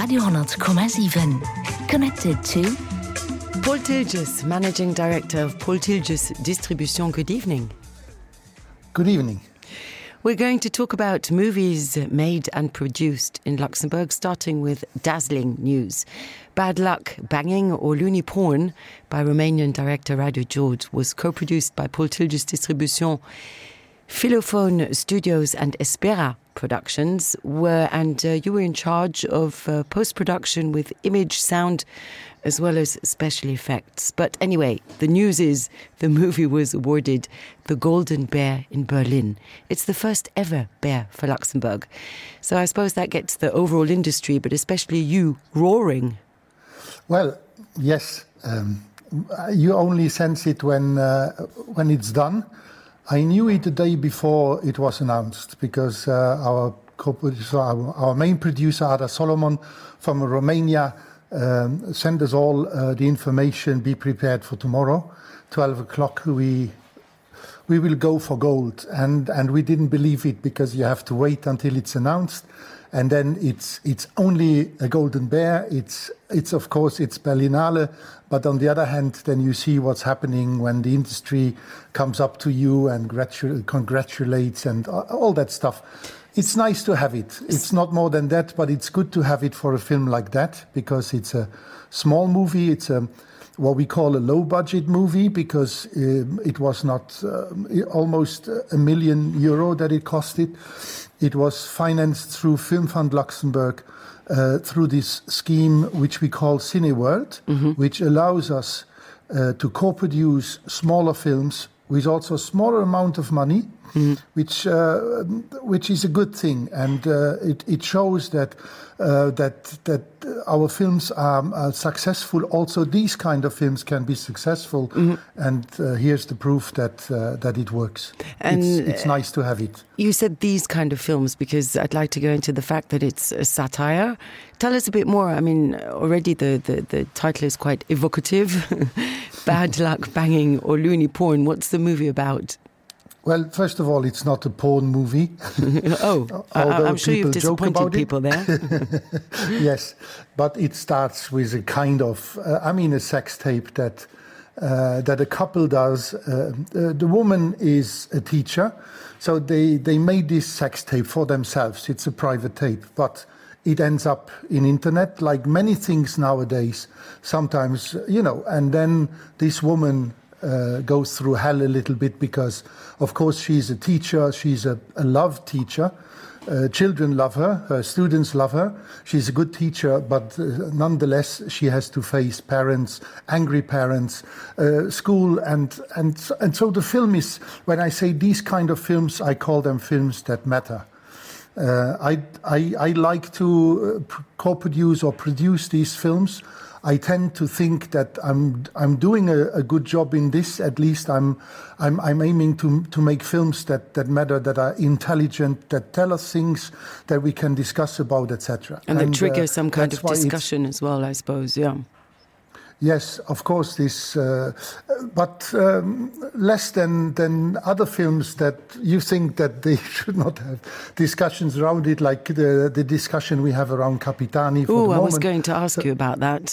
Radio 10,7. Connected to Paul Tilges, Managing Director of Paul Tilges Distribution. Good evening. Good evening. We're going to talk about movies made and produced in Luxembourg, starting with dazzling news. Bad Luck, Banging or Loony Porn by Romanian director Radu George was co-produced by Paul Tilges Distribution. Philophone Studios and Espera Productions you were in charge of post-production with image, sound, as well as special effects. But anyway, the news is the movie was awarded the Golden Bear in Berlin. It's the first ever bear for Luxembourg. So I suppose that gets the overall industry, but especially you, roaring. Well, yes. You only sense it when it's done. I knew it the day before it was announced because our main producer, Ada Solomon from Romania, sent us all the information, be prepared for tomorrow, 12 o'clock, we will go for gold. And we didn't believe it because you have to wait until it's announced. And then it's only a golden bear. It's of course, it's Berlinale. But on the other hand, then you see what's happening when the industry comes up to you and congratulates and all that stuff. It's nice to have it. It's not more than that, but it's good to have it for a film like that because it's a small movie. It's what we call a low-budget movie because it was not almost €1 million that it costed. It was financed through Film Fund Luxembourg through this scheme which we call Cineworld, which allows us to co-produce smaller films with also a smaller amount of money, which is a good thing, and it shows that our films are successful. Also, these kind of films can be successful, and here's the proof that it works. And it's nice to have it. You said these kind of films because I'd like to go into the fact that it's a satire. Tell us a bit more. I mean, already the title is quite evocative. Bad Luck, Banging or Loony Porn. What's the movie about? Well, first of all, it's not a porn movie. I'm sure you've disappointed people there. Yes, but it starts with a kind of, a sex tape that a couple does. The woman is a teacher, so they made this sex tape for themselves. It's a private tape, but it ends up in internet, like many things nowadays. Sometimes, and then this woman goes through hell a little bit because, of course, she's a teacher. She's a loved teacher. Children love her. Her students love her. She's a good teacher, but nonetheless, she has to face parents, angry parents, school, and so the film is. When I say these kind of films, I call them films that matter. I like to co-produce or produce these films. I tend to think that I'm doing a good job in this. At least I'm aiming to make films that matter, that are intelligent, that tell us things that we can discuss about, etc. And that trigger some kind of discussion as well, I suppose. Yeah. Yes, of course, but less than other films that you think that they should not have discussions around it, like the discussion we have around Capitani. Oh, I was going to ask you about that.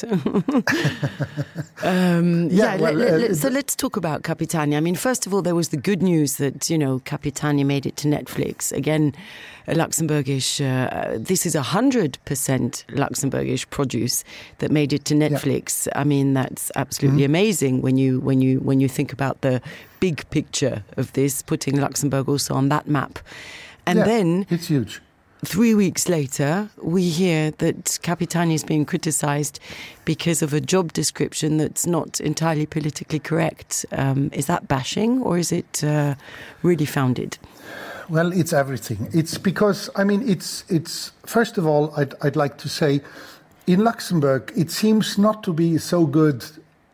So let's talk about Capitani. I mean, first of all, there was the good news that, Capitani made it to Netflix. Again, a Luxembourgish, this is 100% Luxembourgish produce that made it to Netflix. Yeah. I mean, that's absolutely amazing when you think about the big picture of this, putting Luxembourg also on that map. And then it's huge. 3 weeks later, we hear that Capitani is being criticised because of a job description that's not entirely politically correct. Is that bashing or is it really founded? Well, it's everything. It's because, it's first of all, I'd like to say, in Luxembourg, it seems not to be so good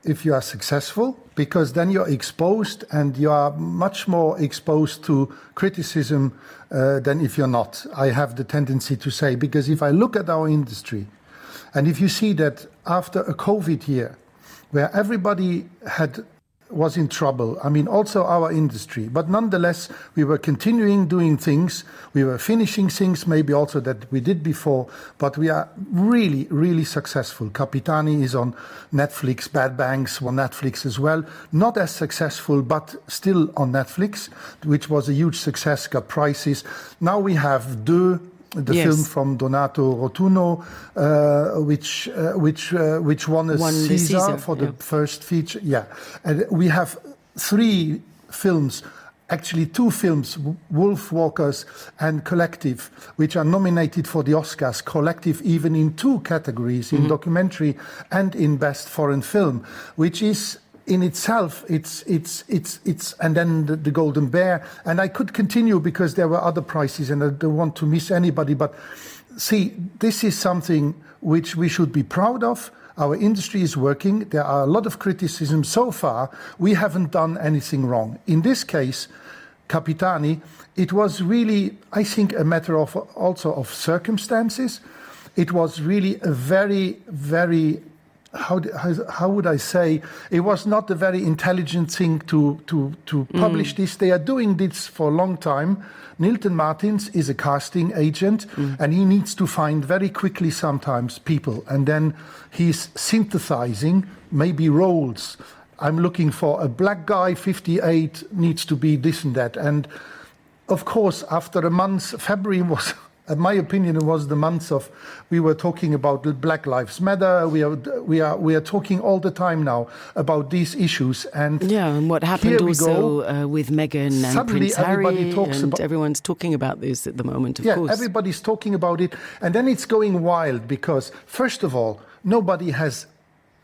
if you are successful, because then you're exposed and you are much more exposed to criticism than if you're not. I have the tendency to say, because if I look at our industry, and if you see that after a COVID year, where everybody had was in trouble. I mean, also our industry. But nonetheless, we were continuing doing things. We were finishing things, maybe also that we did before. But we are really, really successful. Capitani is on Netflix. Bad Banks on Netflix as well. Not as successful, but still on Netflix, which was a huge success, got prizes. Now we have Deux, the film from Donato Rotunno, which won a Caesar for the first feature. Yeah, and we have 3 films, actually 2 films, Wolf Walkers and Collective, which are nominated for the Oscars. Collective even in 2 categories, in documentary and in best foreign film, which is in itself, it's and then the Golden Bear, and I could continue because there were other prizes, and I don't want to miss anybody. But see, this is something which we should be proud of. Our industry is working. There are a lot of criticism so far. We haven't done anything wrong. In this case, Capitani, it was really, I think, a matter of also of circumstances. It was really a very, very how would I say, it was not a very intelligent thing to publish this. They are doing this for a long time. Nilton Martins is a casting agent, and he needs to find very quickly sometimes people, and then he's synthesizing maybe roles. I'm looking for a black guy, 58, needs to be this and that. And of course, after a month, February was... In my opinion, it was the months of, we were talking about Black Lives Matter. We are talking all the time now about these issues. And and what happened also with Meghan and Prince Harry, and everyone's talking about this at the moment, of course. Yeah, everybody's talking about it. And then it's going wild because, first of all, nobody has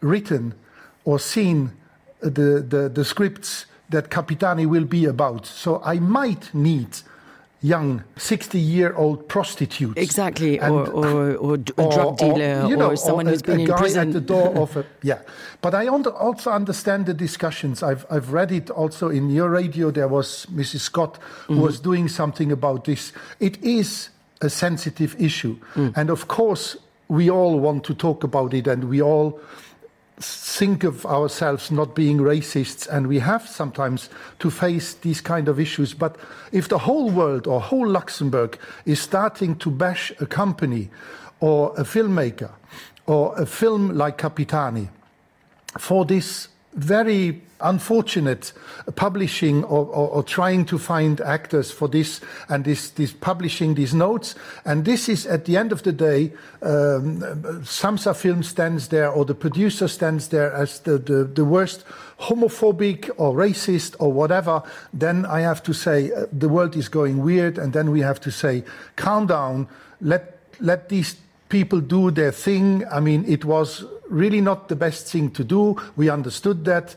written or seen the scripts that Capitani will be about. So I might need young 60-year-old prostitutes. Exactly, or a drug dealer, or someone who's been in prison. At the door of a, But I also understand the discussions. I've read it also in your radio. There was Mrs. Scott who was doing something about this. It is a sensitive issue. And of course, we all want to talk about it, and we all think of ourselves not being racists, and we have sometimes to face these kind of issues. But if the whole world or whole Luxembourg is starting to bash a company or a filmmaker or a film like Capitani for this very unfortunate publishing or trying to find actors for this, and this publishing these notes, and this is at the end of the day, Samsa Film stands there, or the producer stands there as the worst homophobic or racist or whatever, then I have to say the world is going weird, and then we have to say calm down, let these people do their thing. I mean, it was really not the best thing to do. We understood that.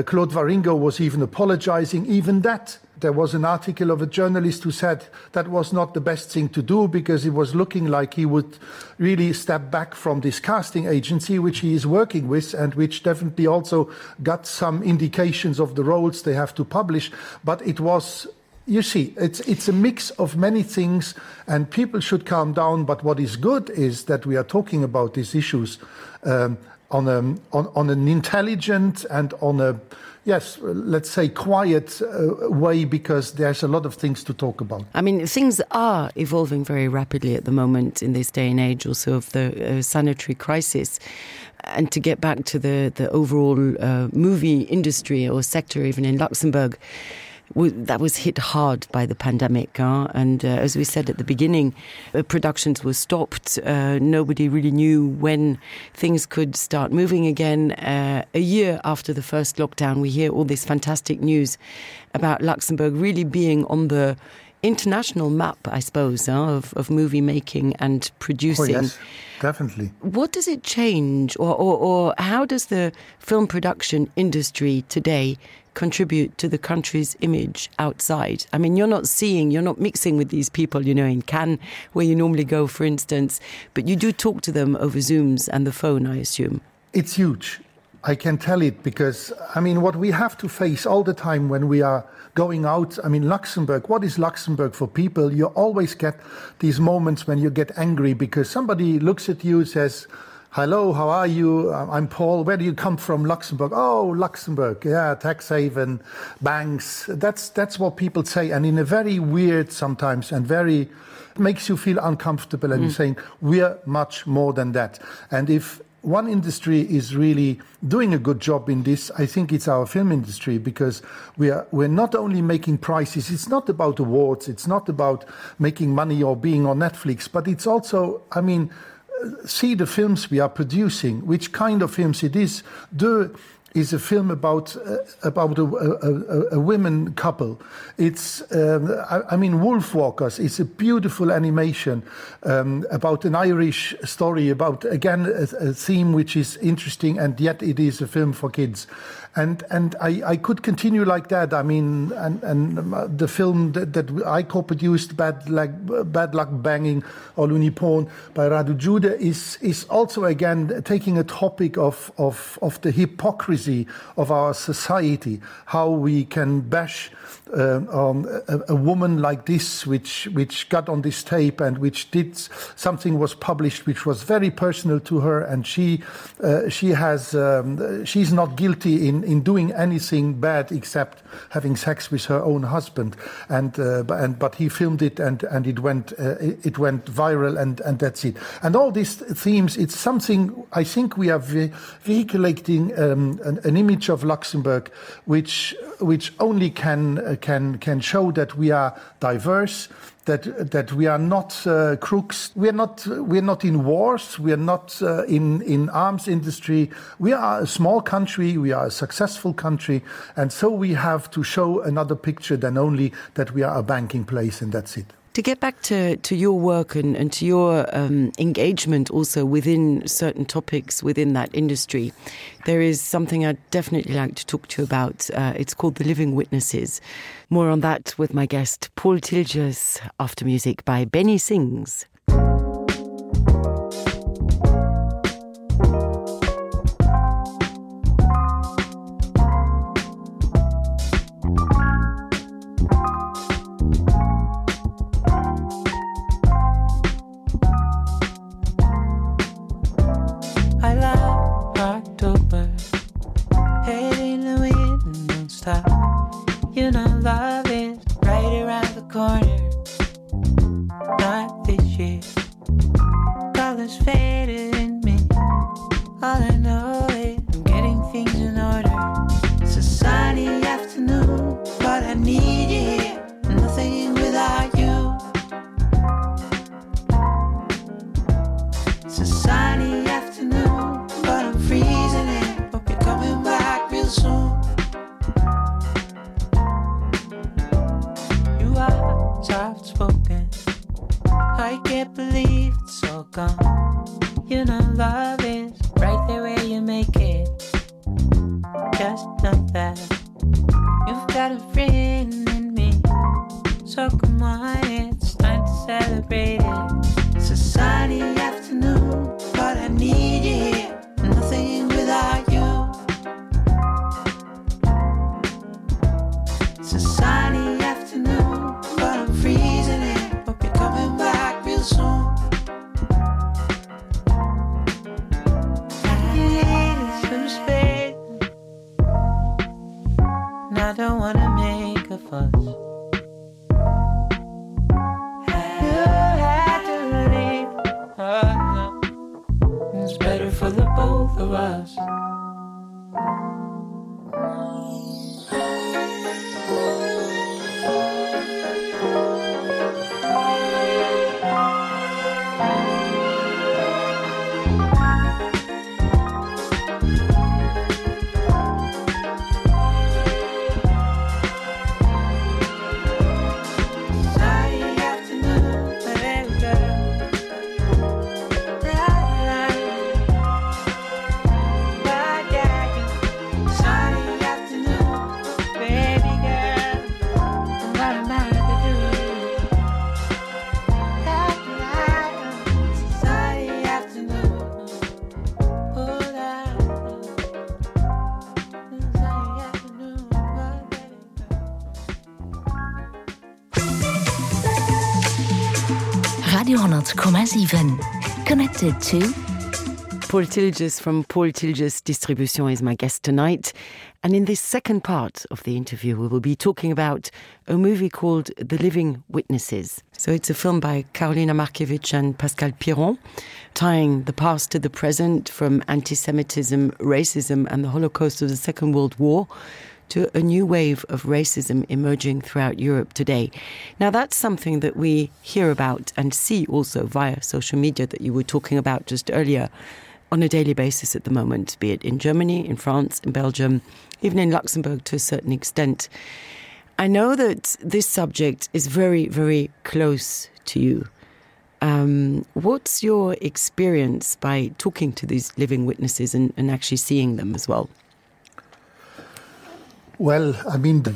Claude Waringo was even apologizing. Even that, there was an article of a journalist who said that was not the best thing to do because it was looking like he would really step back from this casting agency, which he is working with, and which definitely also got some indications of the roles they have to publish. But it was... You see, it's a mix of many things, and people should calm down. But what is good is that we are talking about these issues on an intelligent and on a, let's say, quiet way, because there's a lot of things to talk about. I mean, things are evolving very rapidly at the moment in this day and age, also of the sanitary crisis. And to get back to the overall movie industry or sector, even in Luxembourg, that was hit hard by the pandemic. And as we said at the beginning, productions were stopped. Nobody really knew when things could start moving again. A year after the first lockdown, we hear all this fantastic news about Luxembourg really being on the international map, I suppose, of movie making and producing. Oh, yes, definitely. What does it change, or how does the film production industry today contribute to the country's image outside? I mean, you're not mixing with these people, in Cannes, where you normally go, for instance, but you do talk to them over Zooms and the phone, I assume. It's huge. I can tell it because, I mean, what we have to face all the time when we are going out, I mean, Luxembourg, what is Luxembourg for people? You always get these moments when you get angry because somebody looks at you and says, hello, how are you? I'm Paul. Where do you come from? Luxembourg. Oh, Luxembourg. Yeah, tax haven, banks. That's what people say. And in a very weird sometimes and very makes you feel uncomfortable. And you're saying, we're much more than that. And if one industry is really doing a good job in this, I think it's our film industry, because we're not only making prices, it's not about awards, it's not about making money or being on Netflix, but it's also, I mean, see the films we are producing, which kind of films it is. Is a film about a women couple. It's I mean, Wolfwalkers. It's a beautiful animation about an Irish story about, again, a theme which is interesting, and yet it is a film for kids. And I could continue like that. I mean, and the film that I co-produced, Bad Luck Banging or Looney Porn by Radu Jude, is also again taking a topic of the hypocrisy of our society, how we can bash a woman like this, which got on this tape and which did something, was published which was very personal to her, and she's not guilty in doing anything bad except having sex with her own husband, but he filmed it and it went viral, and that's it. And all these themes, it's something I think we are vehiculating an image of Luxembourg which only can show that we are diverse, that we are not crooks, we're not in wars, we are not in arms industry. We are a small country, we are a successful country, and so we have to show another picture than only that we are a banking place, and that's it. To get back to your work and to your engagement also within certain topics within that industry, there is something I'd definitely like to talk to you about. It's called The Living Witnesses. More on that with my guest, Paul Tilgers, after music by Benny Sings. You know love is right around the corner. Not this year. Colors faded in me. All I know is I'm getting things in order. It's a sunny afternoon, but I need you here. Nothing without you. It's a sunny afternoon, but I'm freezing in. Hope you're coming back real soon. Soft spoken, I can't believe it's all gone. You know love is right there where you make it. Just know that you've got a friend in me. So come on, it's time to celebrate it. It's a sunny afternoon, but I need you here. Nothing without you. It's a sunny afternoon, but I'm freezing in. Hope you're coming back real soon. I need some space, and I don't wanna make a fuss. You had to leave. Oh, no. It's better for the both of us. Radio 10,7 connected to Paul Tilges from Paul Tilges Distribution is my guest tonight. And in this second part of the interview, we will be talking about a movie called The Living Witnesses. So it's a film by Karolina Markiewicz and Pascal Piron, tying the past to the present from anti-Semitism, racism, and the Holocaust of the Second World War to a new wave of racism emerging throughout Europe today. Now, that's something that we hear about and see also via social media that you were talking about just earlier on a daily basis at the moment, be it in Germany, in France, in Belgium, even in Luxembourg to a certain extent. I know that this subject is very, very close to you. What's your experience by talking to these living witnesses and actually seeing them as well? Well, I mean, the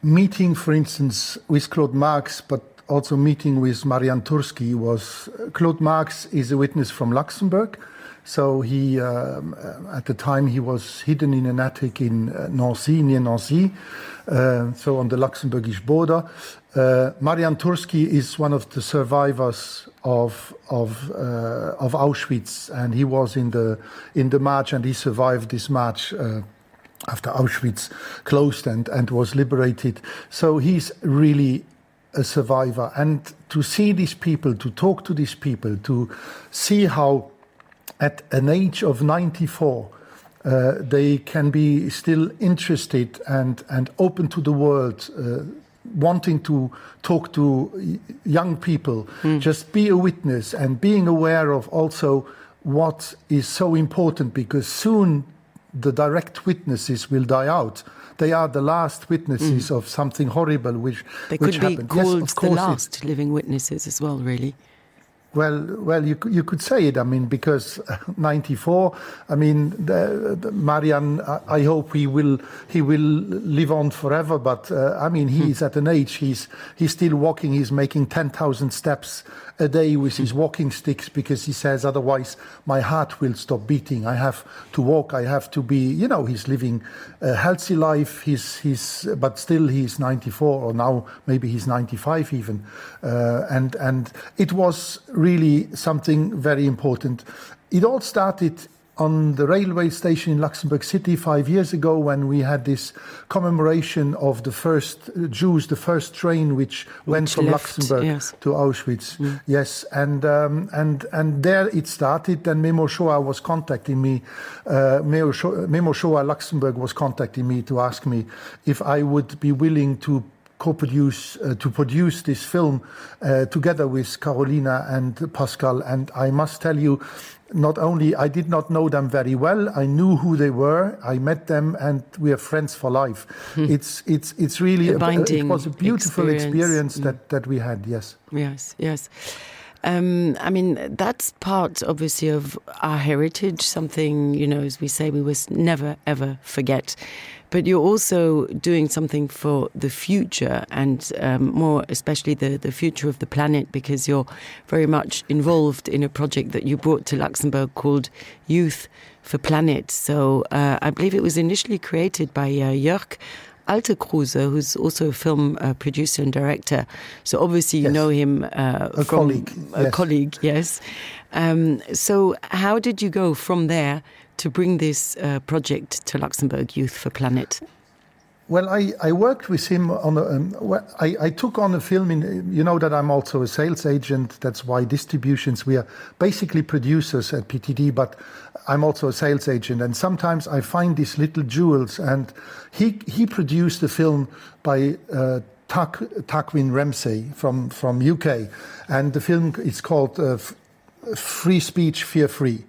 meeting, for instance, with Claude Marx, but also meeting with Marian Turski was... Claude Marx is a witness from Luxembourg. So he, at the time, he was hidden in an attic in Nancy, near Nancy, so on the Luxembourgish border. Marian Turski is one of the survivors of Auschwitz, and he was in the march, and he survived this march after Auschwitz closed and was liberated. So he's really a survivor. And to see these people, to talk to these people, to see how at an age of 94, they can be still interested and open to the world, wanting to talk to young people, just be a witness and being aware of also what is so important, because soon the direct witnesses will die out. They are the last witnesses of something horrible which they could be happened. called yes, of the course last living witnesses as well, really. Well, you could say it. I mean, because 94. I mean, the Marian. I hope he will live on forever. But I mean, he's at an age. He's still walking. He's making 10,000 steps a day with his walking sticks, because he says otherwise my heart will stop beating. I have to walk. I have to be. You know, he's living a healthy life. But still he's 94, or now maybe he's 95 even. And it was really something very important. It all started on the railway station in Luxembourg City 5 years ago, when we had this commemoration of the first Jews, the first train which went from Luxembourg to Auschwitz. Yes, and there it started. Then Memo Shoah was contacting me. Memo Shoah Luxembourg was contacting me to ask me if I would be willing to produce this film together with Karolina and Pascal. And I must tell you, not only I did not know them very well, I knew who they were. I met them, and we are friends for life. It's really it was a beautiful experience that we had. Yes. I mean, that's part, obviously, of our heritage, something, you know, as we say, we must never, ever forget. But you're also doing something for the future, and more especially the future of the planet, because you're very much involved in a project that you brought to Luxembourg called Youth for Planet. So I believe it was initially created by Jörg Altekruse, who's also a film producer and director. So obviously you know him from a colleague, yes. So how did you go from there to bring this project to Luxembourg, Youth for Planet? Well, I worked with him on I took on a film you know that I'm also a sales agent. That's why distributions, we are basically producers at PTD, but I'm also a sales agent. And sometimes I find these little jewels, and he produced a film by Tarquin Ramsey from UK. And the film is called Free Speech, Fear Free.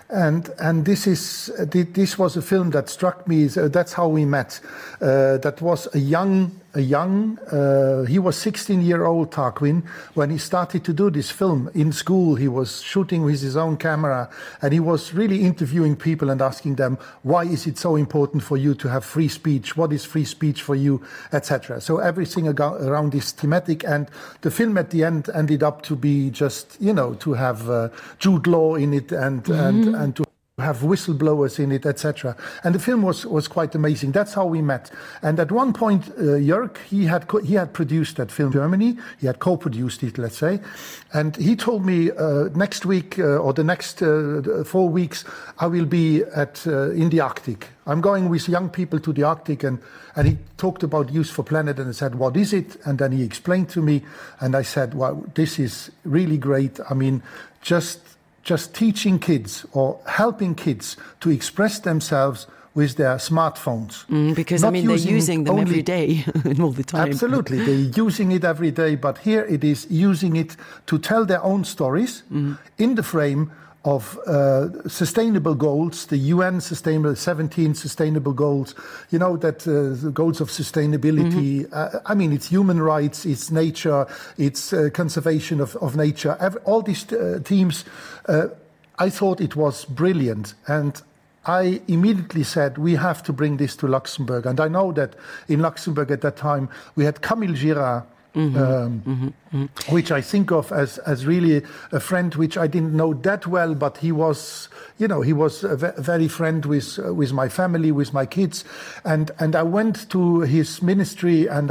And this was a film that struck me. That's how we met. That was a young. He was 16-year-old Tarquin when he started to do this film in school. He was shooting with his own camera, and he was really interviewing people and asking them, why is it so important for you to have free speech? What is free speech for you, etc. So everything around this thematic, and the film at the end ended up to be just, you know, to have Jude Law in it and to have whistleblowers in it, etc. And the film was quite amazing. That's how we met. And at one point, Jörg, he had produced that film in Germany. He had co-produced it, let's say. And he told me next week or the next 4 weeks, I will be in the Arctic. I'm going with young people to the Arctic, and he talked about Youth for Planet, and I said, what is it? And then he explained to me, and I said, well, this is really great. I mean, just teaching kids or helping kids to express themselves with their smartphones. Because, I mean, they're using them every day and all the time. Absolutely. They're using it every day, but here it is using it to tell their own stories in the frame of sustainable goals, the UN 17 sustainable goals, you know, that the goals of sustainability, I mean, it's human rights, it's nature, it's conservation of nature, all these themes. I thought it was brilliant. And I immediately said, we have to bring this to Luxembourg. And I know that in Luxembourg at that time, we had Camille Girard, which I think of as really a friend which I didn't know that well, but he was, you know, he was a very friend with my family, with my kids, and I went to his ministry and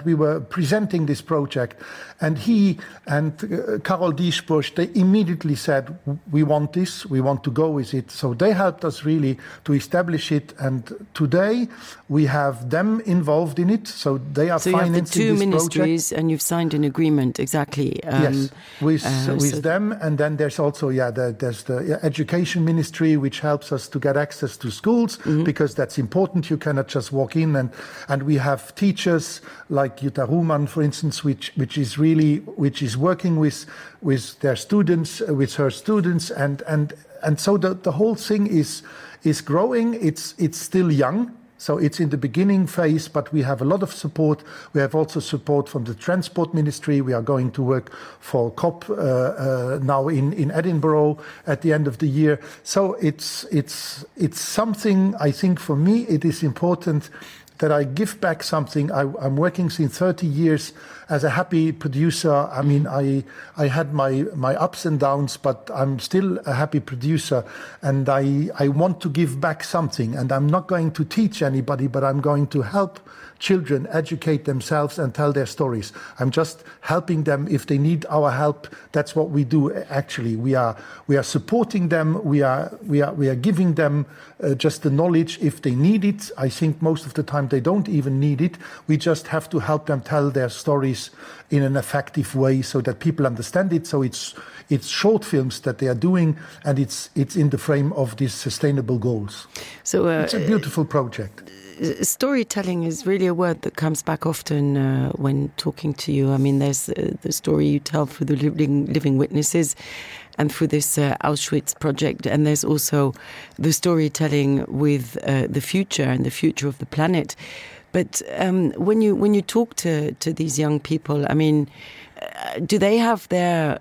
we were presenting this project, and he and Carol Diesbusch, they immediately said, we want this, we want to go with it. So they helped us really to establish it, and today we have them involved in it. So they are financing this project. So you have the two ministries, and you've signed an agreement, exactly. Yes, with them, and then there's also there's the education ministry, which helps us to get access to schools, because that's important. You cannot just walk in, and we have teachers like Jutta Ruhmann, for instance, which is working with their students, with her students, and so the whole thing is growing. It's still young. So it's in the beginning phase, but we have a lot of support. We have also support from the Transport Ministry. We are going to work for COP now in Edinburgh at the end of the year. So it's something, I think for me, it is important that I give back something. I'm working since 30 years as a happy producer. I mean, I had my ups and downs, but I'm still a happy producer, and I want to give back something. And I'm not going to teach anybody, but I'm going to help children educate themselves and tell their stories. I'm just helping them if they need our help. That's what we do. Actually, we are supporting them. We are giving them just the knowledge if they need it. I think most of the time they don't even need it. We just have to help them tell their stories in an effective way so that people understand it. So it's short films that they are doing, and it's in the frame of these sustainable goals. So it's a beautiful project. Storytelling is really a word that comes back often when talking to you. I mean, there's the story you tell through the living witnesses and through this Auschwitz project, and there's also the storytelling with the future and the future of the planet. But when you talk to these young people, I mean, do they have their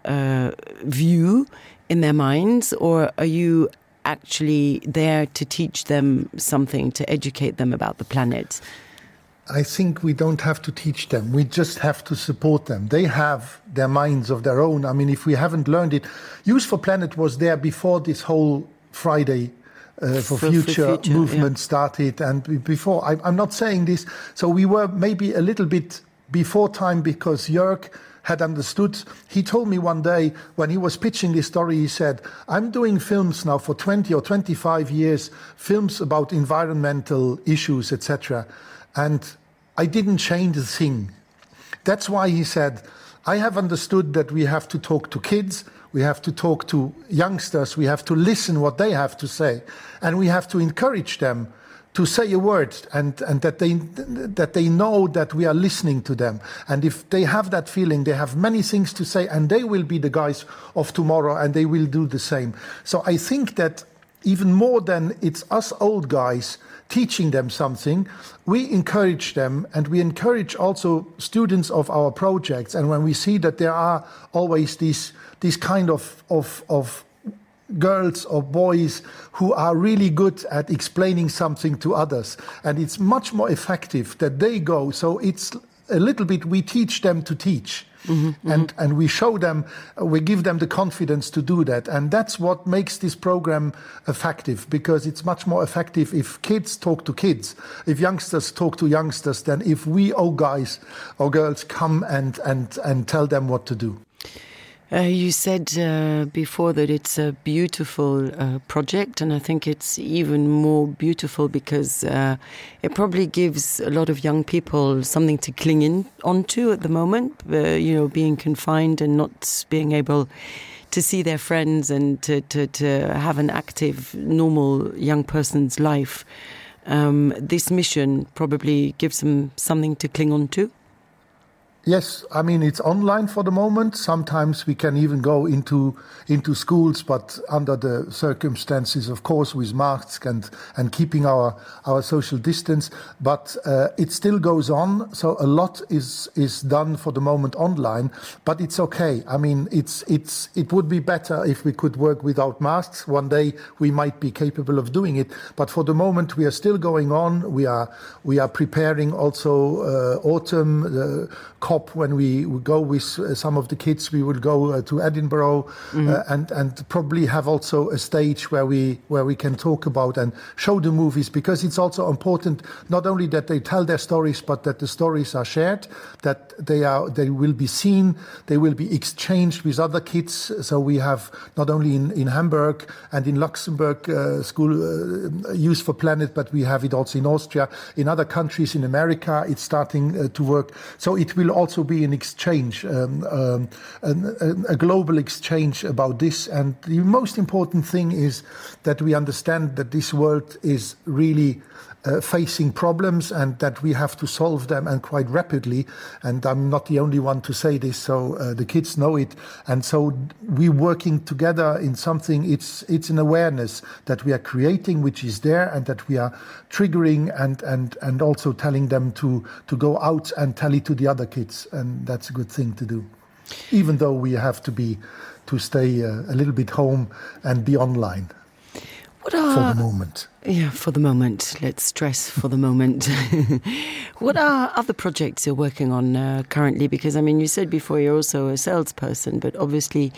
view in their minds, or are you actually there to teach them something, to educate them about the planet? I think we don't have to teach them. We just have to support them. They have their minds of their own. I mean, if we haven't learned it, Youth for Planet was there before this whole Friday for future movement started, and before. I'm not saying this. So we were maybe a little bit before time, because Jörg had understood. He told me one day when he was pitching this story, he said, I'm doing films now for 20 or 25 years, films about environmental issues, etc. And I didn't change a thing. That's why he said, I have understood that we have to talk to kids, we have to talk to youngsters, we have to listen what they have to say, and we have to encourage them to say a word, and that they know that we are listening to them. And if they have that feeling, they have many things to say, and they will be the guys of tomorrow, and they will do the same. So I think that even more than it's us old guys teaching them something, we encourage them, and we encourage also students of our projects. And when we see that there are always these kind of girls or boys who are really good at explaining something to others, and it's much more effective that they go. So it's a little bit, we teach them to teach. And we show them, we give them the confidence to do that. And that's what makes this program effective, because it's much more effective if kids talk to kids, if youngsters talk to youngsters, than if we, guys or girls, come and tell them what to do. You said before that it's a beautiful project, and I think it's even more beautiful because it probably gives a lot of young people something to cling onto at the moment, being confined and not being able to see their friends and to have an active, normal young person's life. This mission probably gives them something to cling on to. Yes, I mean, it's online for the moment. Sometimes we can even go into schools, but under the circumstances, of course, with masks and keeping our social distance. But it still goes on. So a lot is done for the moment online, but it's okay. I mean, it would be better if we could work without masks. One day we might be capable of doing it. But for the moment, we are still going on. We are preparing also autumn, COP. When we go with some of the kids, we will go to Edinburgh and probably have also a stage where we can talk about and show the movies, because it's also important not only that they tell their stories, but that the stories are shared, that they will be seen, they will be exchanged with other kids. So we have not only in Hamburg and in Luxembourg school Youth for Planet, but we have it also in Austria, in other countries, in America it's starting to work. So it will also be an exchange, a global exchange about this. And the most important thing is that we understand that this world is really facing problems and that we have to solve them, and quite rapidly. And I'm not the only one to say this, so the kids know it. And so we're working together in something, it's an awareness that we are creating, which is there, and that we are triggering and also telling them to go out and tell it to the other kids. And that's a good thing to do, even though we have to stay a little bit home and be online. For the moment. Yeah, for the moment. Let's stress for the moment. What are other projects you're working on currently? Because, I mean, you said before you're also a salesperson, but obviously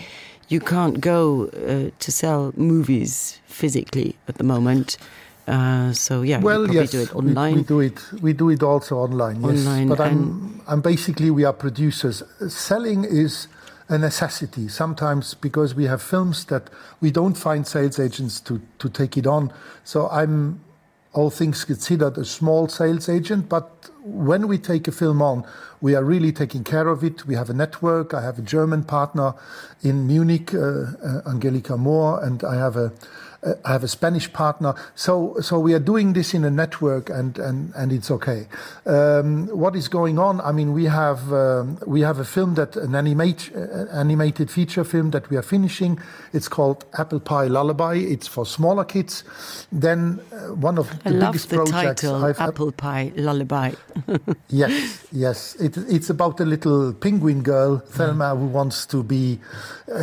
you can't go to sell movies physically at the moment. So, yeah, well, you yes, do it online. We do it also online, yes. Online, but I'm basically, we are producers. Selling is a necessity sometimes, because we have films that we don't find sales agents to take it on. So I'm, all things considered, a small sales agent, but when we take a film on, we are really taking care of it. We have a network. I have a German partner in Munich, Angelika Mohr, and I have a Spanish partner. So we are doing this in a network, and it's okay. What is going on? I mean, we have a film an animated feature film that we are finishing. It's called Apple Pie Lullaby. It's for smaller kids. Then one of the biggest projects. I love the title, Apple Pie Lullaby. Yes. It's about a little penguin girl, Thelma, who wants to be.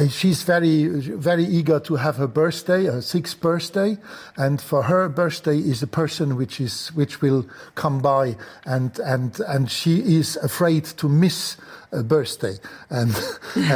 She's very, very eager to have her birthday, her 6th birthday, and for her birthday is a person which will come by, and she is afraid to miss a birthday, and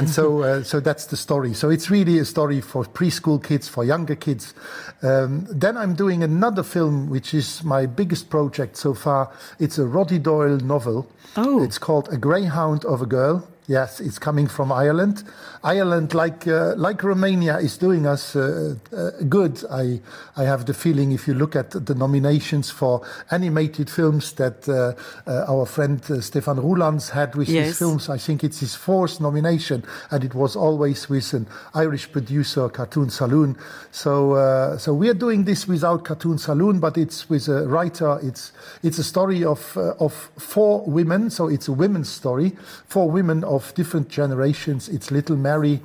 so that's the story. So it's really a story for preschool kids, for younger kids. Then I'm doing another film, which is my biggest project so far. It's a Roddy Doyle novel. Oh. It's called A Greyhound of a Girl. Yes, it's coming from Ireland. Ireland, like Romania, is doing us good. I have the feeling, if you look at the nominations for animated films that our friend Stefan Roelands had with his films, I think it's his 4th nomination, and it was always with an Irish producer, Cartoon Saloon. So we are doing this without Cartoon Saloon, but it's with a writer. It's a story of 4 women, so it's a women's story. 4 women of different generations. It's little Mary,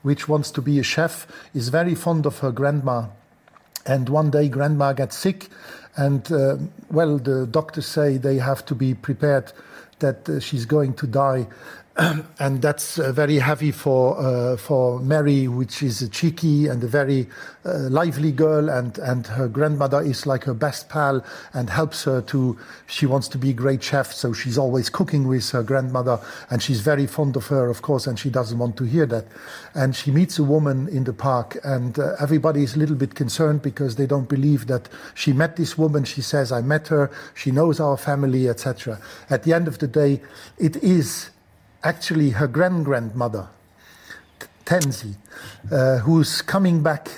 which wants to be a chef, is very fond of her grandma. And one day grandma gets sick, and the doctors say they have to be prepared that she's going to die. And that's very heavy for Mary, which is a cheeky and a very lively girl, and her grandmother is like her best pal and helps her she wants to be a great chef, so she's always cooking with her grandmother, and she's very fond of her, of course, and she doesn't want to hear that. And she meets a woman in the park, and everybody is a little bit concerned because they don't believe that she met this woman. She says, I met her, she knows our family, etc. At the end of the day, it is actually her grandmother, Tenzi, who's coming back,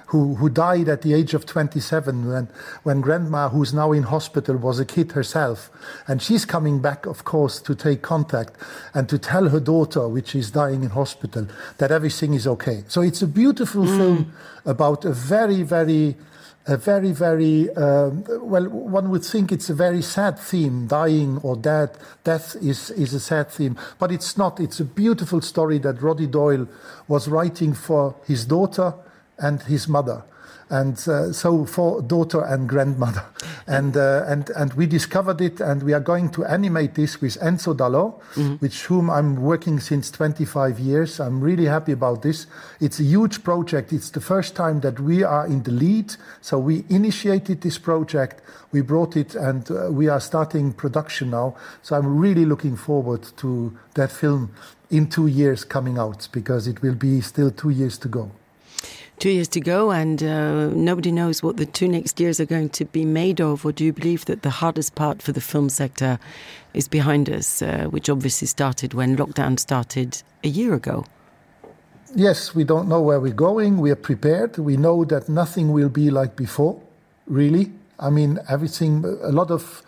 who died at the age of 27 when grandma, who's now in hospital, was a kid herself. And she's coming back, of course, to take contact and to tell her daughter, which is dying in hospital, that everything is okay. So it's a beautiful film about a very, well, one would think it's a very sad theme. Dying or death is a sad theme. But it's not. It's a beautiful story that Roddy Doyle was writing for his daughter and his mother. And so for daughter and grandmother. And we discovered it, and we are going to animate this with Enzo Dallò, with whom I'm working since 25 years. I'm really happy about this. It's a huge project. It's the first time that we are in the lead. So we initiated this project, we brought it, and we are starting production now. So I'm really looking forward to that film in 2 years coming out, because it will be still 2 years to go. 2 years to go, and nobody knows what the 2 next years are going to be made of. Or do you believe that the hardest part for the film sector is behind us, which obviously started when lockdown started a year ago? Yes, we don't know where we're going. We are prepared. We know that nothing will be like before, really. I mean, everything, a lot of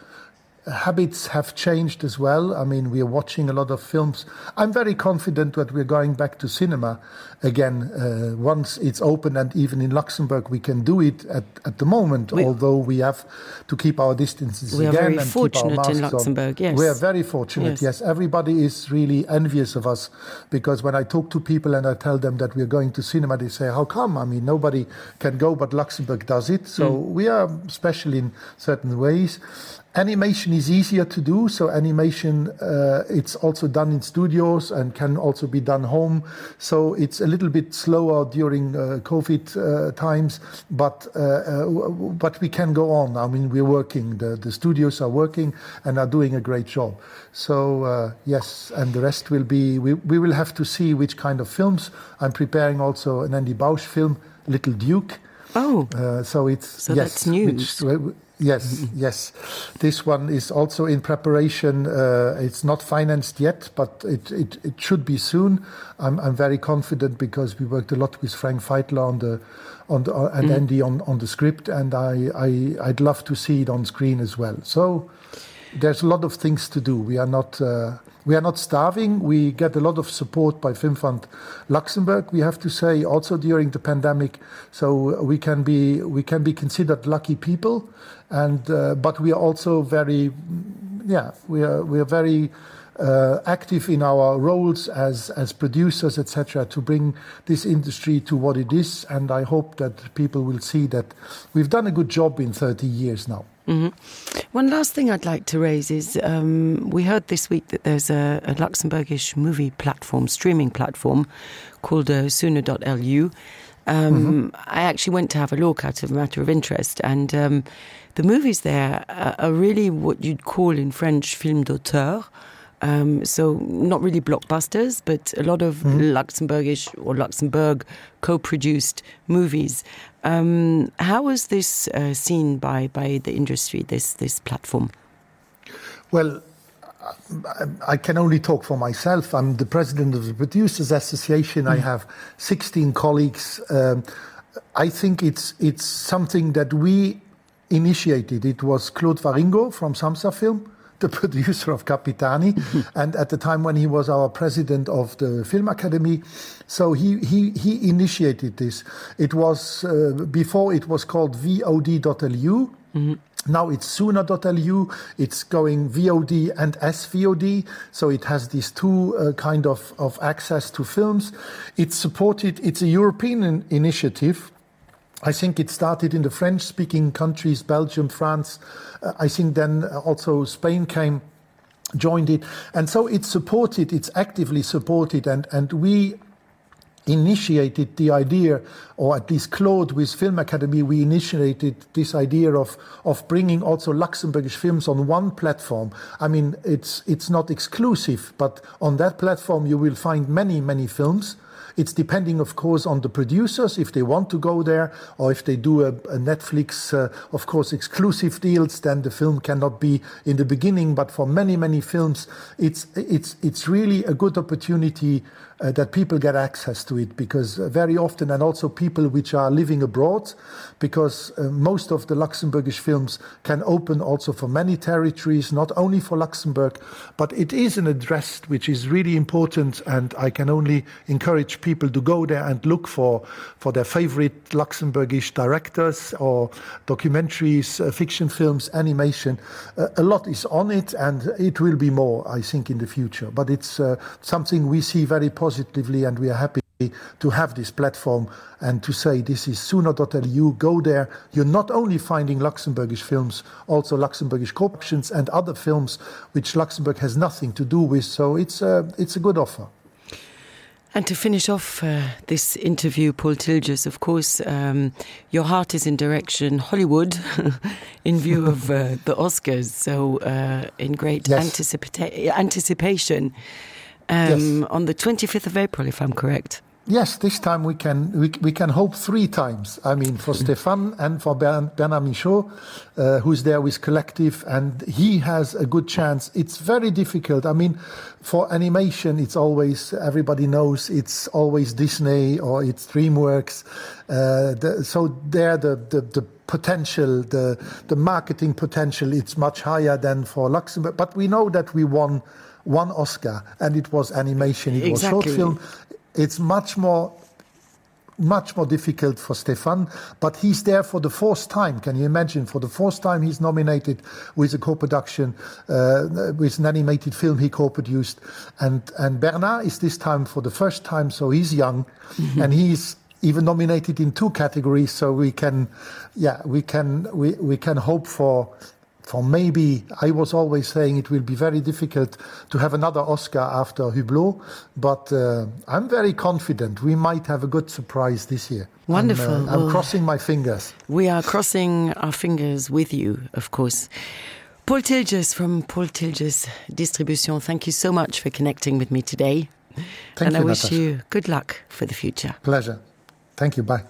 habits have changed as well. I mean, we are watching a lot of films. I'm very confident that we're going back to cinema again once it's open, and even in Luxembourg we can do it at the moment, although we have to keep our distances we again. We are very and fortunate keep our in masks Luxembourg, on. yes. We are very fortunate, yes. Everybody is really envious of us, because when I talk to people and I tell them that we're going to cinema, they say, how come? I mean, nobody can go, but Luxembourg does it. So we are special in certain ways. Animation is easier to do, so animation, it's also done in studios and can also be done home. So it's a little bit slower during COVID times, but we can go on. I mean, we're working. The studios are working and are doing a great job. So yes, and the rest will be, we will have to see which kind of films. I'm preparing also an Andy Bausch film, Little Duke. Oh, so that's news. Yes. This one is also in preparation. It's not financed yet, but it should be soon. I'm very confident, because we worked a lot with Frank Feitler and Andy on the script, and I'd love to see it on screen as well. So there's a lot of things to do. We are not starving. We get a lot of support by Film Fund Luxembourg, we have to say, also during the pandemic. So we can be considered lucky people, and but we are also very, we are very active in our roles as producers, etc., to bring this industry to what it is. And I hope that people will see that we've done a good job in 30 years now. Mm-hmm. One last thing I'd like to raise is we heard this week that there's a Luxembourgish movie platform, streaming platform, called Sune.lu. I actually went to have a look out of a matter of interest, and the movies there are really what you'd call in French film d'auteur. So not really blockbusters, but a lot of Luxembourgish or Luxembourg co-produced movies. How was this seen by the industry, this platform? Well, I can only talk for myself. I'm the president of the Producers Association. I have 16 colleagues. I think it's something that we initiated. It was Claude Varingo from Samsa Film, the producer of Capitani, and at the time when he was our president of the Film Academy. So he initiated this. It was, before it was called VOD.lu. Now it's Sune.lu. It's going VOD and SVOD. So it has these two kind of access to films. It's supported, it's a European initiative. I think it started in the French-speaking countries, Belgium, France. I think then also Spain came. joined it. And so it's supported, it's actively supported, and we initiated the idea, or at least Claude with Film Academy, we initiated this idea of bringing also Luxembourgish films on one platform. I mean, it's not exclusive, but on that platform you will find many, many films. It's depending, of course, on the producers, if they want to go there, or if they do a Netflix, of course, exclusive deals, then the film cannot be in the beginning. But for many, many films, it's really a good opportunity that people get access to it, because very often, and also people which are living abroad, because most of the Luxembourgish films can open also for many territories, not only for Luxembourg, but it is an address which is really important, and I can only encourage people to go there and look for their favorite Luxembourgish directors or documentaries, fiction films, animation. A lot is on it, and it will be more, I think, in the future. But it's something we see very positively, and we are happy to have this platform and to say this is Suno.lu. Go there. You're not only finding Luxembourgish films, also Luxembourgish co-productions and other films which Luxembourg has nothing to do with. So it's a good offer. And to finish off this interview, Paul Tiljes, of course, your heart is in direction Hollywood in view of the Oscars. So in great anticipation on the 25th of April, if I'm correct. Yes, this time we can hope 3 times. I mean, for Stéphane and for Bernard Michaud, who's there with Collective, and he has a good chance. It's very difficult. I mean, for animation, it's always, everybody knows, it's always Disney or it's DreamWorks. So there, the potential, the marketing potential, it's much higher than for Luxembourg. But we know that we won 1 Oscar, and it was animation. It was short film. It's much more difficult for Stéphane, but he's there for the 4th time. Can you imagine? For the 4th time he's nominated with a co-production, with an animated film he co-produced. And Bernard is this time for the first time, so he's young, and he's even nominated in 2 categories. So we can hope for maybe, I was always saying it will be very difficult to have another Oscar after Hublot, but I'm very confident we might have a good surprise this year. Wonderful. I'm crossing my fingers. We are crossing our fingers with you, of course. Paul Tiljes from Paul Tiljes Distribution, thank you so much for connecting with me today. Thank you, I wish Natasha. you good luck for the future. Pleasure. Thank you. Bye.